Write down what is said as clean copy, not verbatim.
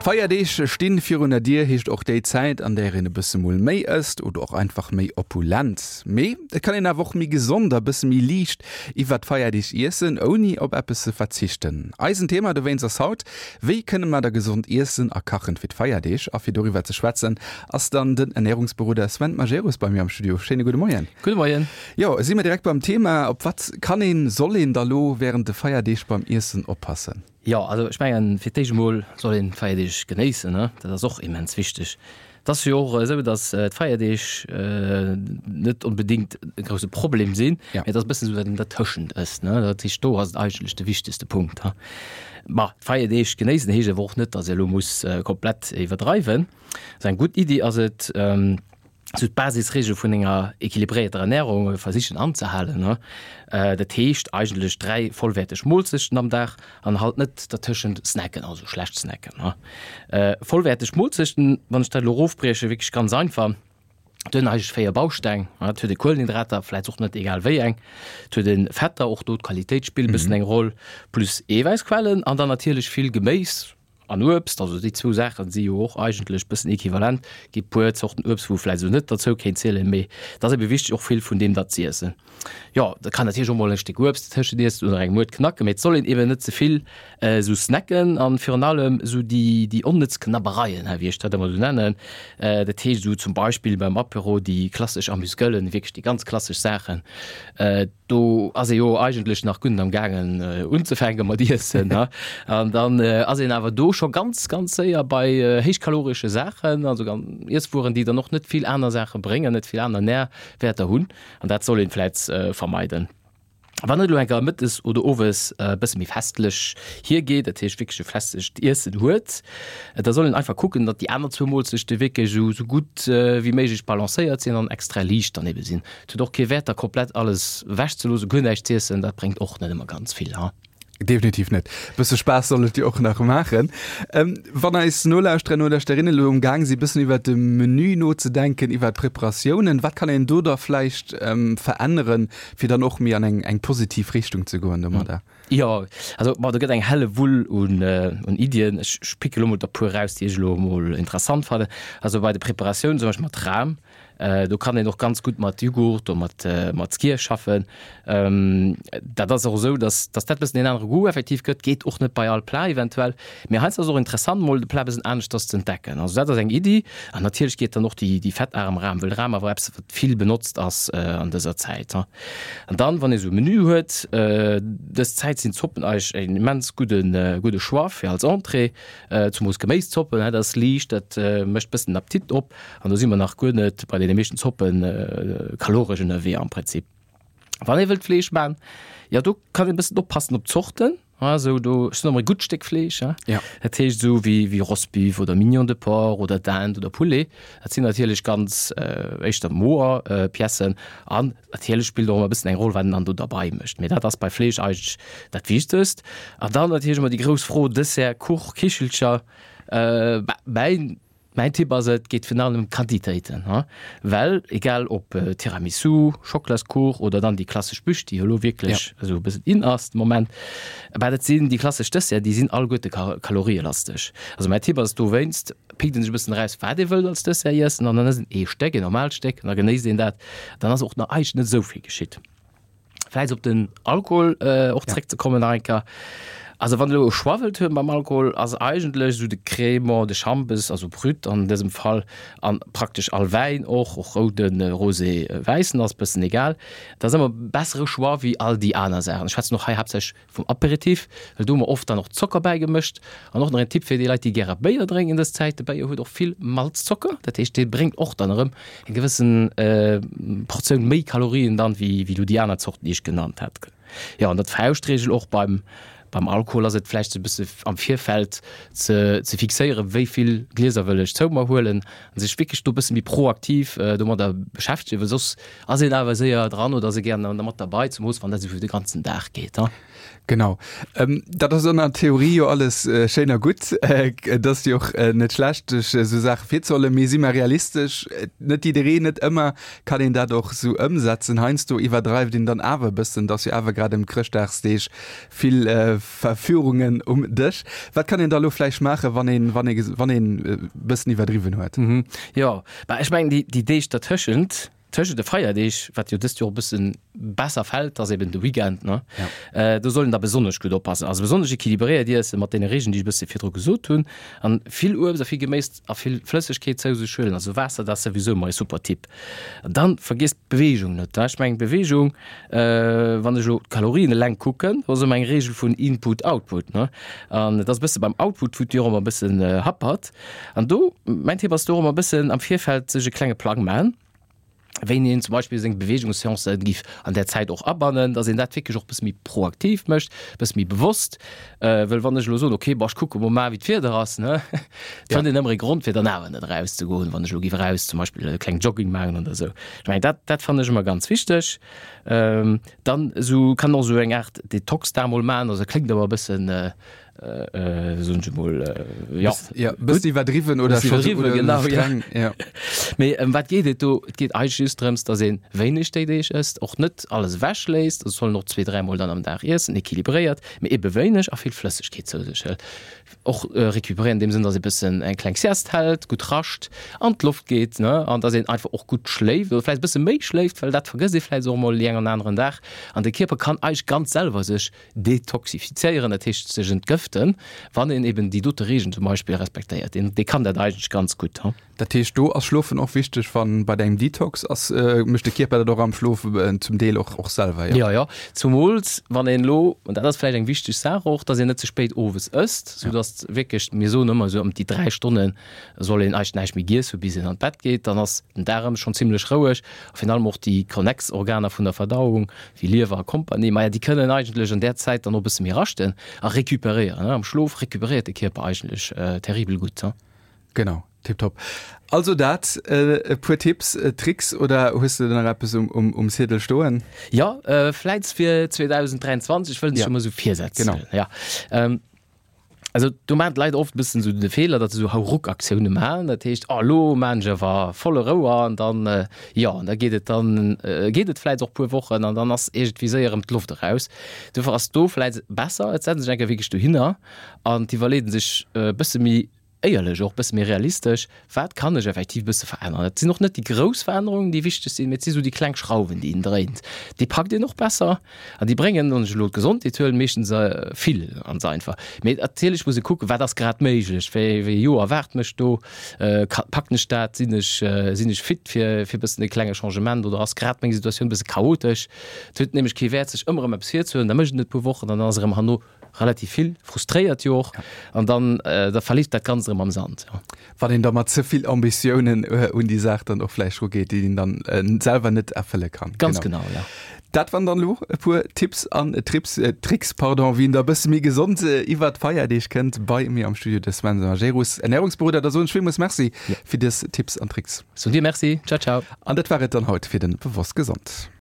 D'Feierdeeg stinn virun der Dier, heescht och déi Zäit, an där een e bësse mol méi ësst oder och einfach méi opulent. Mee et kann een awer och méi gesond a bësse méi liicht iwwert d'Feierdeeg iessen, ouni op eppes ze verzichten. Eisen Thema dowéinst ass haut, Wéi kënne mer da gesond iessen a kachen fir d'Feierdeeg? A fir doriwwer ze schwätzen, ass dann den Ernärungsberoder Sven Majerus bei mir am Studio. Schéine gudde Moien. Gudde Moien. Jo, si mer direkt beim Thema. Op wat kann een, soll een da lo wärend de Feierdeeg beim Iessen oppassen? Jo, also ech mengen, fir d'éischt emol soll een d'Feierdeeg genéissen, ne? Dat ass och immens wichteg. Et ass jo och esou, datt d'Feierdeeg net onbedéngt e grousse Problem sinn, mee et ass e bëssen esou, wat een dertëschent ësst, ne? Dat heescht, do ass et eigentlech de wichtegste Punkt. Ma d'Feierdeeg genéissen heescht awer och net, datt ee elo muss komplett iwwerdreiwen. Also eng gutt Iddi ass et, sou d'Basisregel vun enger equilibréierter Ernährung versichen anzehalen. Dat heescht eigentlech 3 vollwäerteg Moolzechten am Dag an halt net dertëschent snacken, also schlecht snacken. Vollwäerteg Moolzechten, wann ech dat elo erofbriechen, wierklech ganz einfach, et hunn eigentlech 4 Bausteng. Et huet ee Kuelenhydrater, vläicht och net egal wéi eng, et huet ee Fetter, och do d'Qualitéit spillt e bëssen eng Roll, plus Eewäissquellen an dann natierlech vill Geméis, An Uebst, also déi zwou Saachen si jo och eigentlech bëssen equivalent. Gi puer Zorten Uebst, wou vläicht esou net derzou kéint zielen, mee et ass ebe wichteg och vill vun deem da z'iessen. Jo, da kann natierlech och mol e Stéck Uebst dertëschent iessen oder eng Muert knacken, mee et soll een eben net ze vill esou snacken an virun allem esou déi déi onnëtz Knabbereien, hei wéi ech dat ëmmer esou nennen, dat heescht esou zum Beispill beim Apéro déi klassesch Amuse-Gueulen, wierklech déi ganz klassesch Saachen. Do ass ee jo eigentlech nach gutt am gaangen unzefänke mat iessen, ne? An dann ass een awer do scho ganz, ganz séier bei héichkaloresche Saachen, also Iesswueren, déi dann och net vill aner Saache bréngen, net vill aner Närwäerter hunn. An dat soll een vläit vermeiden. Wann et elo eng Kéier mëttes oder owes e bësse méi festlech hiergeet, dat heescht wierklech e festlecht Iessen huet, da soll een einfach kucken, datt déi aner zwou Moolzechte wierklech esou gutt wéi méiglech balancéiert sinn an extra liicht dann ebe sinn. Et huet och kee Wäert da komplett alles ewech ze loossen, guer näischt z'iessen, dat bréngt och net ëmmer ganz vill, ha. Definitiv net. Bësse Spaass soll et jo och nach maachen. Wann eis Nolauschterer, Nolauschterinnen elo um Gaang si bëssen iwwert de Menü nozedenken, iwwert d'Preparatiounen, wat kann een do da vläicht veränneren, fir dann och méi an eng eng positiv Richtung ze goen domadder? Jo, also bon, do gëtt eng helle Wull un un Iddien. Ech picke lo mol der puer eraus, déi ech elo mol interessant fannen. Also bei de Preparatiounen, zum Beispill mat Ram, Do kann een och ganz gutt mat Jughurt oder mat, mat Skyr schaffen. Dat ass och esou, dass, dass dat e bëssen een anere Goût effektiv gëtt. Geet och net bei all Plat eventuell. Mee heiansdo ass et och interessant, mol de Plat e bëssen aneschters ze entdecken. Also dat ass eng Iddi. An natierlech geet dann och déi, déi fettarem Ram, wëll Ram awer eppes, wat vill benotzt ass an dëser Zäit. An dann, wann ee sou e Menü huet, dës Zäit sinn Zoppen eigentlech en immens gudde, gudde Choix fir als Entrée. Zemoos Geméiszoppen, dat ass liicht, dat mécht bëssen den Appetit op. An do si mer nach guer net bei deene meeschten Zoppen kaloresch ënnerwee am Prinzip. Wann ee wëllt Fleesch man, jo do kann een e bëssen oppassen op d'Zorten. Esou do, ech soen ëmmer e gutt Stéck Fleesch, hein. Ja. Dat heescht esou wéi wéi Rostbeef oder Mignon de porc oder Dinde oder Poulet. Dat sinn natierlech ganz éischter moer Piècen an natierlech spillt och ëmmer e bëssen eng Roll wat een dann do derbei mécht. Mee dat ass bei Fleesch eigentlech dat Wichtegst. An dann natierlech ëmmer déi grouss Fro, Dessert, Kuch, Kichelcher, mäin Mäin Tipp ass et geet virun allem ëm d'Quantitéiten, well egal ob Tiramisu, Schocklaskuch oder dann déi klassesch Bûche, déi jo elo wierklech esou e bëssen in ass de Moment, bah dat sinn déi klassesch Desserten, déi sinn alleguerte kalorielasteg. Also mäin Tipp ass dowéinst, pickt een sech e bëssen eraus wat ee wëllt als Dessert iessen an dann ësst een ee Stéck, een normaalt Stéck an da genéisst een dat, dann ass och nach eigentlech net esou vill geschitt. Vläicht op den Alkohol och zréckzekommen nach eng Kéier. Also wann elo e Choix wëllt huelen beim Alkohol, ass eigentlech esou de Crémant de Chambes, also Brut an dësem Fall, an praktesch all Wäin och, och rouden, rosé, wäissen ass bëssen egal, dat ass ëmmer e bessere Choix wéi all déi aner Saachen. Ech schwätzen och hei haaptsächlech vum Aperitif, well do hu mer oft dann och Zocker bäigemëscht. An och nach en Tipp fir déi Leit, déi gäre Béier drénken dës Zäit, de Béier huet och vill Malzzocker, dat heescht dee bréngt och dann erëm eng gewëssen Portioun méi Kalorien dann, wéi wéi elo déi aner Zorten, déi ech genannt hat. Jo, an der Fauschtregel och beim beim Alkohol ass et vläicht e bësse am Virfeld ze ze fixéieren, wéi vill Glieser wëll ech zou mer huelen, an sech wierklech do e bësse méi proaktiv domadder beschäftegen, well soss Ass een awer séier dran oder ass ee gären da mat derbei, zemoos wann dat esou fir de ganzen Dag geet, ha? Genau. Dat ass an der Theorie jo alles schéin a gutt. Et ass jo och net schlecht, sech esou Saache virzehuelen. Mee si mer realistesch, net jiddereen, net ëmmer kann een dat och esou ëmsetzen. Heiansdo iwwerdreift een dann awer e bëssen. Et ass jo awer grad ëm d'Chrëschtdagsdeeg vill Verführungen um Dësch. Wat kann een da elo vläicht maachen, wann een, wann ee, wann een e bëssen iwwerdriwwen huet? Jo, bah ech mengen déi Deeg dertëschent, Tëschent de Feierdeeg, wat jo dëst Joer e bësse besser fält, ass eben de Weekend, ne? Ja. Do soll een da besonnesch gutt oppassen. Also besonnesch equilibréiert iessen, mat deene Regeln, déi ech e bësse virdru gesot hunn. An vill Uebst a vill Geméis a vill Flëssegkeet zou sech huelen. Also Waasser, dat ass souwisou ëmmer e super Tipp. An dann vergiesst d'Beweegung net, ne? Ech mengen d'Beweegung, wann ech elo d'Kalorien eleng kucken, do ass ëmmer eng Reegel vun Input, Output, ne? An et ass e bësse beim Output, wou d'Joer ëmmer e bëssen happert. An do, mäin Tipp ass do och ëmmer e bëssen am Virfeld sech e klenge Plang maachen, wéini een zum Beispill seng Beweegungsseancen giff an där Zäit och abannen, dass een dat wierklech och e bësse méi proaktiv mécht, e bësse méi bewosst. Well wann ech elo soen, okay, bon, ech kucke mol mar wéi d'Wieder ass, ne, et fënnt een ëmmer e Grond fir dann awer net erauszegoen, wann ech elo giff eraus zum Beispill e kleng Jogging maachen oder esou. Ech mengen dat, dat fannen ech ëmmer ganz wichteg. Dann esou kann och esou eng Aart Detox-Dag mol maachen, also kléngt ëmmer e bëssen, soen ech emol, ja. Ja, bëssen iwwerdriwwen oder scho iwwerdriwwen, genau, streng, ja. Mee ëm wat geet et do? Et geet eigentlech just drëms, dass ee wéineg déi Deeg ësst, och net alles ewechléisst, also soll en och zwee, dräimol dann am Dag iessen, equilibréiert, mee ebe wéineg a vill Flëssegkeet zou sech hëlt. Och recuperéieren an deem Sënn, dass ee bëssen eng kleng Sieste hält, gutt rascht, an d'Loft geet, ne, an dass een einfach och gutt schléift oder vläicht e bësse méi schléift, well dat vergësst ee vläicht och emol déi eng an aneren Dag. An de Kierper kann eigentlech ganz selwer sech Detoxifizéieren, dat heescht sech entgëften, wann een eben déi dote Regeln zum Beispill respektéiert. Deen, dee kann dat eigentlech ganz gutt. Dat heescht, do ass Schlofen och wichteg, wann bei engem Detox ass, mécht de Kierper dat och am Schlof zum Deel och, och selwer, jo? Jo, jo, zumools wann een elo, an dat ass vläicht eng wichteg Saach och, dass een net ze spéit owes ësst, soudass wierklech, mir soen ëmmer esou ëm déi 3 Stonne soll een eigentlech näischt méi giess hu bis een an d'Bett geet, dann ass den Daarem schonn zimlech roueg a virun allem och déi konnex Organer vun der Verdauung, wéi Liewer a Kompanie, maja déi kënnen eigentlech an där Zäit dann och e bësse méi raschten a recuperéieren. Am Schlof recuperéiert de Kierper eigentlech terribel gutt. Genau, tiptop. Also dat e puer Tipps, Tricks oder hues de nach eppes um Ziedel stoen? Jo, vläits fir 2023 wëllen ech jo mol esou Virsätz. Genau. Ja. Also do maachen d'Leit oft e bëssen esou de Feeler, datt se esou Hauruck-Aktioune maachen. Dat heescht, oh elo maachen ech awer volle Rouer an dann, jo, an da geet et dann, geet et vläicht och puer Wochen an dann ass iergendwéi séier erëm d'Loft eraus. Dofir ass do vläicht besser, et setzt sech eng Kéier wierklech dohinner an d'iwwerleet sech e bësse méi éierlech och, e bësse méi realistesch, Wat kann ech effektiv e bësse veränneren? Et sinn och net déi grouss Verännerungen, déi wichteg sinn, mee et si sou déi kleng Schrauwen, déi een dréint. Déi packt een och besser an déi bréngen, wann ech elo d'Gesondheet huelen, meeschtens vill, ganz einfach. Mee natierlech muss ee kucken, wat ass grad méiglech, wéi ee Joer erwaart mech do, packen ech dat, sinn ech, sinn ech fit fir fir e bëssen e klenge Changement oder ass grad meng Situatioun e bësse chaotesch? Et huet nämlech kee Wäert, sech ëmmer erëm eppes virzehuelen, da mécht een et e puer Wochen an dann ass erëm herno relativ vill, frustréiert jo och, an dann da verleeft dat Ganzt erëm am Sand. Jo. Wann een da mat ze vill Ambitiounen un déi Saach dann och vläicht rugeet, déi een dann selwer net erfëlle kann. Ganz genau, ja. Dat waren dann elo e puer Tipps an Trips, Tricks, pardon, wéi een da e bësse méi gesond iwwert d'Feierdeeg kënnt. Bei mir am Studio de Sven Majerus, Ernährungsberoder. Da soen ech villmools Merci fir dës Tipps an Tricks. Soen dir Merci. Ciao, ciao. An dat war et dann haut fir de Bewosst Gesond.